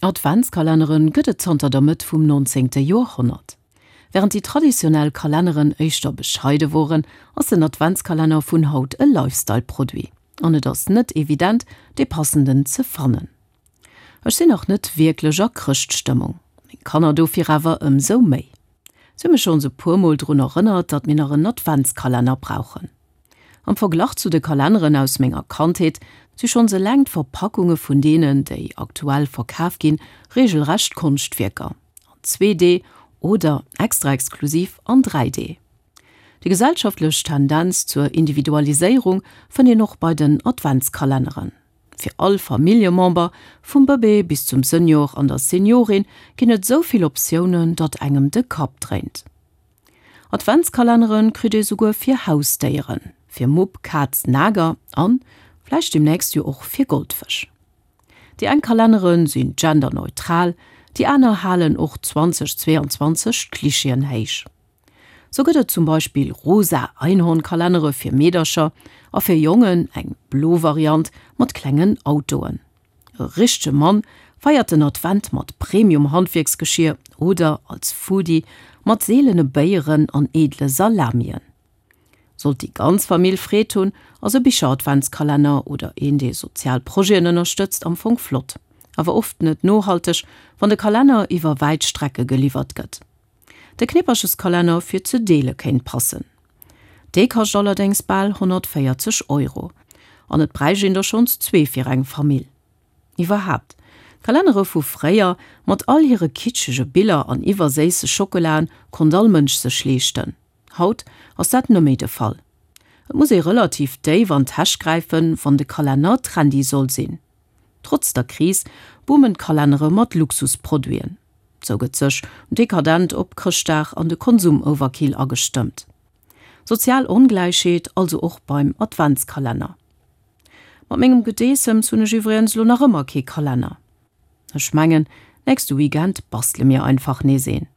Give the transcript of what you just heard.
Adventskalennere gëtt et zanter der Mëtt vum 19. Joerhonnert. Wärend déi traditionell Kalenneren éischter bescheide woren, ass den Adventskalenner vun haut e Lifestyle-Produit. An et ass net evident, dee passenden ze fannen. Ech sinn nach net wierklech a Chrëschtstëmmung, meng Kanner dofir awer ëmsou méi. Si hu mech schonns e puer Mol drun erënnert, datt mir nach en Adventskalenner brauchen. Am Verglach zu de Kalenneren aus menger Kandheet si schonns eleng d'Verpackunge vun deenen, déi aktuell verkaf ginn, regelrecht Konschtwierker, an 2D oder, extra exklusiv, an 3D. Déi gesellschaftlech Tendenz zur Individualiséierung fënnt een och bei den Adventskalenneren. Fir all Familljemember, vum Bëbee bis zum Senior an der Seniorin, ginn et esou vill Optiounen, datt engem de Kapp dréint. Adventskalenneren kritt ee souguer fir Hausdéieren, fir Mupp, Kaz, Nager an vläicht demnächst jo och fir Goldfësch. Déi eng Kalenneren sinn genderneutral, déi aner halen och 2022 d'Klischeeën héich. Sou gëtt et zum Beispill rosa Einhornkalennere fir Meedercher a fir Jongen eng blo Variant mat klengen Autoen. E richtege Mann feiert den Advent mat Premium-Handwierksgeschier oder als Foodie mat seelene Béieren an edle Salamien. Sollt déi ganz Famill Freed hunn, ass e Bicher-Adventskalenner oder een, dee sozial Projeten ënnerstëtzt, am Fong flott. Awer oft net nohalteg, wann de Kalenner iwwer wäit Strecke geliwwert gëtt. De Knippercheskalenner fir ze deele kéint passen. Dee kascht allerdéngs bal 140 Euro. An et bräicht een der schonns zwee fir eng Famill. Iwwerhaapt, d'Kalennere vu fréier, mat all hire kitschege Biller an iwwerséisse Schockelaen, konnt all Mënsch sech leeschten. Haut ass dat net méi de Fall. Et muss ee relativ déif an d'Täsch gräifen, wann de Kalenner trendy soll sinn. Trotz der Kris boomen d'Kalennere mat Luxusproduiten. Sou gëtt sech dekadent op Chrëschtdag an de Konsum-Overkill agestëmmt. Sozial Ongläichheet also och beim Adventskalenner. Mat mengem Gedeessems hunn ech iwwregens lo nach ëmmer kee Kalenner. Ech mengen, nächste Weekend bastele mir einfach nees een.